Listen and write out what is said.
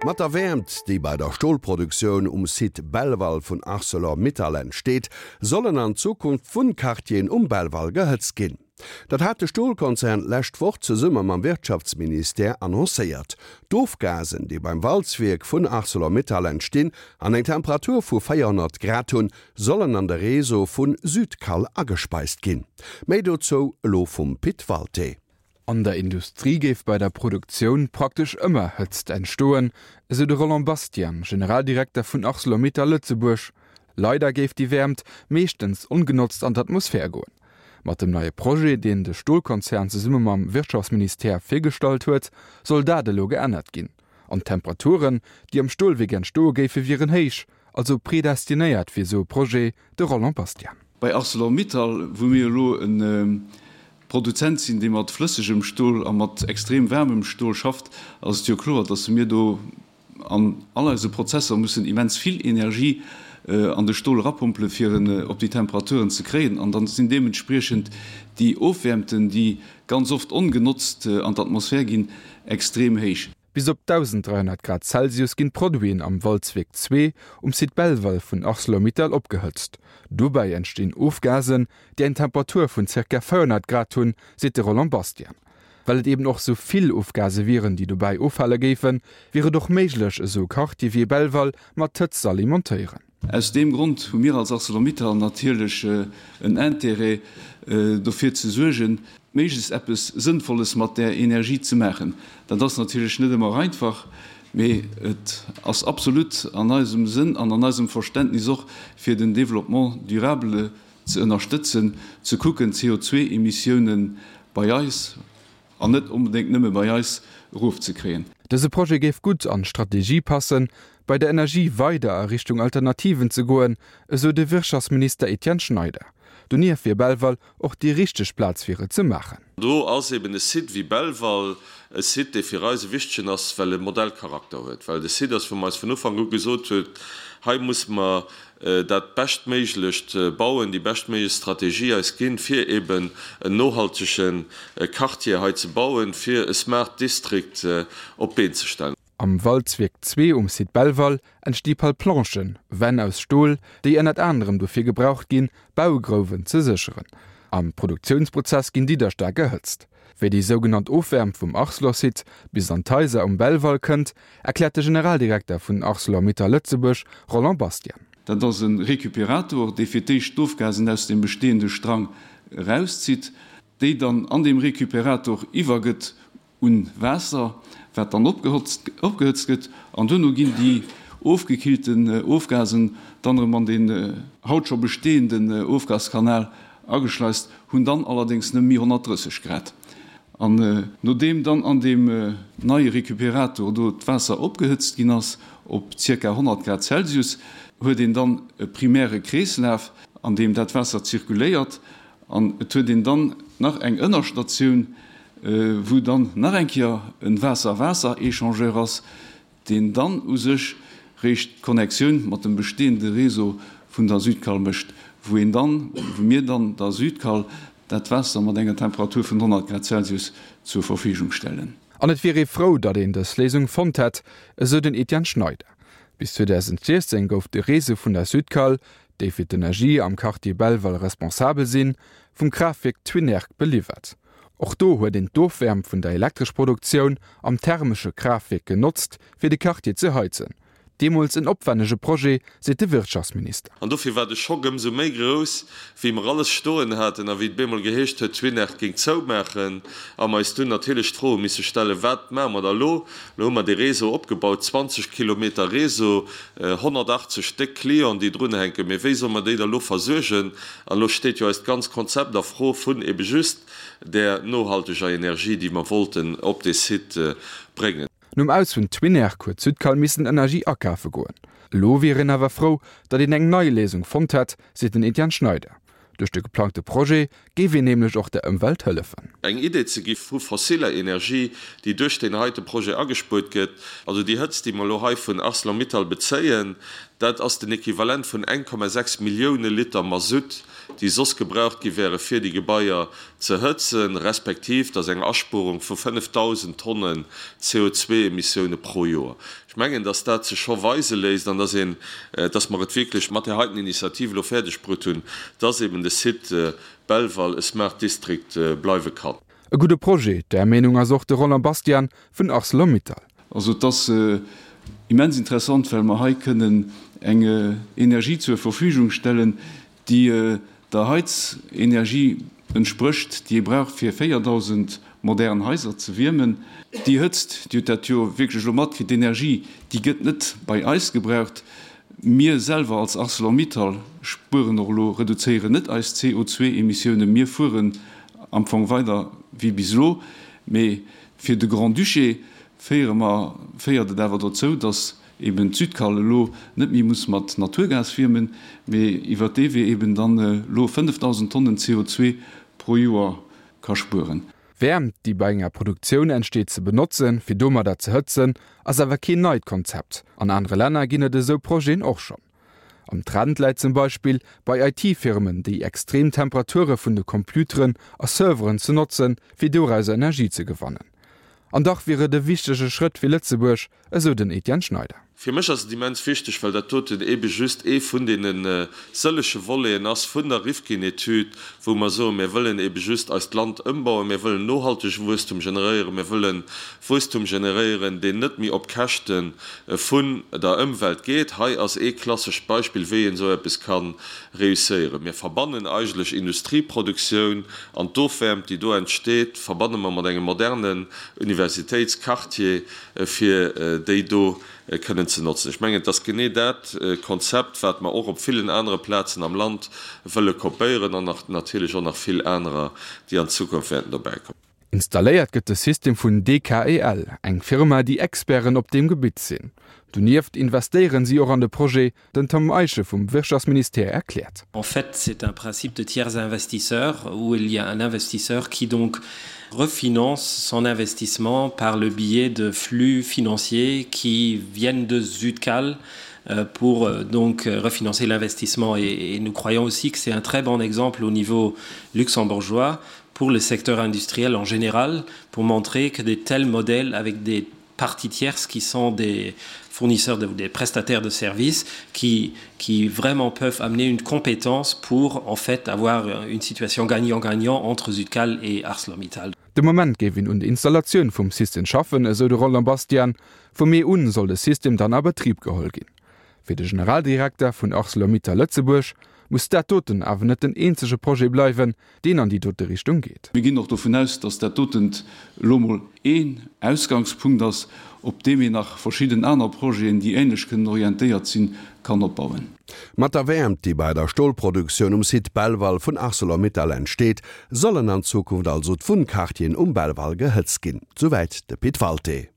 Mat der Wäermt, déi bei der Stolproduktioun um Site Belval vun Arcelor Mittal entsteet, sollen an Zukunft Wunnquartieren um Belval gehëtzt ginn. Dat hat de Stolkonzern d'lescht Woch zesumme mam Wirtschaftsministère annoncéiert. D'Ofgasen, déi beim Walzwierk vun Arcelor Mittal entstinn an eng Temperatur vu 400 Grad hunn, sollen an de Réseau vu Südcal agespeist ginn. Méi dozou elo vum Pit Walté. An der Industrie géif bei der Produktioun praktesch ëmmer Hëtzt entstoen, esou de Roland Bastian, Generaldirekter vun Arcelor-Mittal Lëtzebuerg. Leider géif déi Wäermt meeschtens ongenotzt an d'Atmosphär goen. Mat dem neie Projet, deen de Stolkonzern zesumme mam Wirtschaftsministère virgestallt huet, soll dat elo geännert ginn. An d'Temperaturen, déi am Stolwierk entstoe géife wieren héich, also predestinéiert fir esou e Projet, de Roland Bastian. Bei Arcelor-Mittal, wou mir elo e Produzent sinn, dee mat flëssegem Stol a mat extrem waarmem Stol schafft, ass et jo kloer, dass mir do an all eise Prozesser mussen immens vill Energie an de Stol erapompele fir en op déi Temperaturen ze kréien. An dann sinn deementspriechend déi Ofwäermten, déi ganz oft ongenotzt an d'Atmosphär ginn, extrem héich. Bis op 1.300 Grad Celsius ginn d'Produiten am Walzwierk 2 um Site Belval vun Arcelor-Mittal opgehëtzt. Dobäi entstinn Ofgasen, déi eng Temperatur vun zirka 400 Grad hunn, seet de Roland Bastian. Well et eben och sou vill Ofgase wieren, déi dobäi offale géifen, wier et och méiglech, esou e Quartier wéi Belval mat Hëtzt z'alimentéieren. Aus deem Grond hu mir als Arcelor-Mittal natierlech en Intérêt, dofir ze suergen, méiglechst eppes Sënnvolles mat där Energie ze maachen. Dat ass natierlech net ëmmer einfach, mee et ass absolut an eisem Sënn an an eisem Verständnis och, fir den Développement durable ze ënnerstëtzen, ze kucken, d'CO2-Emissiounen bei eis, An net onbedéngt nëmme bei eis, erofzekréien. Dëse Projet géif gutt an d'Strategie passen, bei der Energie weider a Richtung Alternativen ze goen, esou de Wirtschaftsminister Etienne Schneider. Donieft wier Belval och déi richteg Plaz fir et ze maachen. Do ass eben e Site wéi Belval e Site, dee fir eis e wichtegen ass, well e Modellcharakter huet, well et e Site ass, wou mer eis vun Ufank u gesot hunn, hei musse mer dat Beschtméiglecht bauen, déi beschtméiglech Strategie eis ginn, fir eben en nohaltege Quartier hei ze bauen, fir e Smart District op d'Been ze stellen. Am Walzwierk 2 um Site Belval entsti Palplanchen, Wänn aus Stol, déi ënnert anerem dofir gebraucht ginn, Baugrouwen ze sécheren. Am Produktiounsprozess ginn déi da staark erhëtzt. Wéi déi sougenannt Ofwäermt vum Arcelor-Site bis an d'Haiser um Belval kënnt, erkläert de Generaldirekter vun Arcelor-Mittal Lëtzebuerg, Roland Bastian. Dat ass e Récupérator, dee fir d'éischt d'Ofgasen aus dem bestehende Strang erauszitt, déi dann an deem Récupérator iwwergëtt un Waasser, wat dann opgehëtzt gëtt, an duerno ginn déi ofgekillten Ofgasen dann erëm an deen haut scho bestehenden Ofgaskanal ageschleist, hunn dann allerdéngs nëmme méi 130 Grad. An nodeem dann an deem neie Recuperator do d'Waasser opgehëtzt ginn ass op zirka 100 Grad Celsius, huet een dann e primäre Kreeslaf, an deem dat Waasser zirkuléiert. An et huet een dann nach eng Ënnerstatioun, wou dann nach eng Kéier e Waasser-Waasser-Echangeur ass, deen dann u sech réischt d'Connectioun mat dem bestehende Réseau vun der Südcal mécht, wou een dann, wou mir dann der Südcal dat Waasser mat enger Temperatur vun 100 Grad Celsius zur Verfügung stellen. An et wier ee frou, datt een dës Léisung fonnt hätt, esou den Etienne Schneider. Bis 2016 gouf de Réseau vun der Südcal, déi fir d'Energie am Quartier Belval responsabel sinn, vum Kraaftwierk Twinnerg beliwwert. Och do huet een d'Ofwäermt vun der Elektreschproduktioun am thermesche Kraaftwierk genotzt, fir de Quartier ze heizen. Deemools en opwennege Projet, seet de Wirtschaftsminister. An dofir war de Schock ëmsou méi grouss, wéi mer alles stoen haten a wéi et bemol geheescht huet, Twinnerg géing zoumaachen a mer eis dunn natierlech d'Fro hu misse stellen, Wat maache mer da elo? Elo hu mer dee Réseau opgebaut, 20 Kilometer Réseau, 180 déck Clienten, déi drunhänken, mee wéi solle mer déi da elo versuergen? An elo steet jo eist ganz Konzept a Fro vun ebe just där nohalteger Energie, déi mer wollten op dee Site bréngen. Nom Aus vun Twinnerg huet Südcal missen Energie akafe goen. Elo wier een awer frou, datt een eng nei Léisung fonnt hätt, seet den Etienne Schneider. Duerch de geplangte Projet géif een nämlech och der Ëmwelt hëllefen. Eng Idee ze gi vu fossiller Energie, déi duerch deen heite Projet agespuert gëtt. Also déi Hëtzt, déi mer elo hei vun Arcelor-Mittal bezéien,. Dat ass den Equivalent vun 1,6 Millioune Liter Masutt, déi soss gebraucht gi wäre fir déi Gebaier ze hëtzen, respektiv dat ass eng Aspuerung vu 5.000 Tonnen CO2-Emissioune pro Joer. Ech mengen, dass dat sech scho weise léisst an dass een, dass mer et wierklech mat där heiten Initiativ elo fäerdeg brutt hunn, dass eben de Site Belval e Smart District bleiwe kann. E gudde Projet, där Meenung ass och de Roland Bastian vun Arcelor-Mittal. Also et ass immens interessant, well mer hei kënnen eng Energie zur Verfügung stellen, déi der Heizenergie entsprécht, déi ee brauch fir 4.000 modern Haiser ze wiermen. Déi Hëtzt, Dir hutt dat jo wierklech elo matkritt, d'Energie, déi gëtt net bei eis gebraucht. Mir selwer als Arcelor-Mittal spueren och elo, reduzéieren net eis CO2-Emissiounen. Mir fueren am Fong weider wéi bis elo. Mee fir de Grand-Duché féiere mer, féiert et awer dozou, datt eben d'Südkall elo net méi muss mat Naturgas wiermen, mee iwwert dee Wee eben dann elo 5.000 Tonnen CO2 pro Joer ka spueren. Wäermt, déi bei enger Produktioun entsteet, ze benotzen, fir domadder ze hëtzen, ass awer keen neit Konzept. An anere Länner ginn et esou Projeten och schonn. Am Trend läit zum Beispill bei IT-Firmen, déi extrem Temperature vun de Computeren a Serveren ze notzen, fir dorauser Energie ze gewannen. An dach wier et e wichtege Schrëtt fir Lëtzebuerg, esou den Etienne Schneider. Fir mech ass et immens wichteg, well dat doten eebe just ee vun deene sëllege Voleten ass vun der Rifkin-Etüd, wou mer soen, mir wëllen eebe just eist Land ëmbauen, mir wëllen nohaltege Wuesstum generéieren, mir wëlle Wuesstum generéieren, deen net méi op Käschte vun der Ëmwelt geet. Hei ass ee klassescht Beispill, wéi een esou eppes ka reusséieren. Mir verbannen eigentlech Industrieproduktioun an d'Ofwäermt, déi do entsteet, verbanne mer mat engem modernen Universitéitsquartier, fir déi do kënnen ze notzen. Ech mengen, et ass genee dat Konzept, wat mer och op villen anere Plazen am Land wëlle kopéieren an nach natierlech och nach vill anerer, déi an Zukunft wäerten dobäikommen. Installéiert gëtt de System vun DKEL, eng Firma, déi Experten op deem Gebitt sinn. Donieft investéieren si och an de Projet, Den Tom Eiche vum Wirtschaftsministère erkläert. En fait, c'est un principe de tiers investisseur où il y a un investisseur qui donc refinance son investissement par le biais de flux financiers qui viennent de Zutcal euh, pour euh, donc euh, refinancer l'investissement et, et nous croyons aussi que c'est un très bon exemple au niveau luxembourgeois pour le secteur industriel en général pour montrer que des tels modèles avec des parties tierces qui sont des fournisseurs de, des prestataires de services qui, qui vraiment peuvent amener une compétence pour en fait avoir une situation gagnant-gagnant entre Südcal et ArcelorMittal. De Moment géif een un der Installatioun vum System schaffen, esou de Roland Bastian. Vum Mee un soll de System dann a Betrib geholl ginn. Fir de Generaldirekter vun Arcelor-Mittal Lëtzebuerg muss dat doten awer net den eenzege Projet bleiwen, deen an déi dote Richtung geet. Mir ginn och dovun aus, dass dat dotent elo mol een Ausgangspunkt ass, op deem een nach verschidden aner Projeten, déi ähnlech kënnen orientéiert sinn, kann opbauen. Mat der Wäermt, déi bei der Stolproduktioun um Site Belval vun Arcelor-Mittal entsteet, sollen an Zukunft also d'Wunnquartieren um Belval gehëtzt ginn. Souwäit de Pit Walté.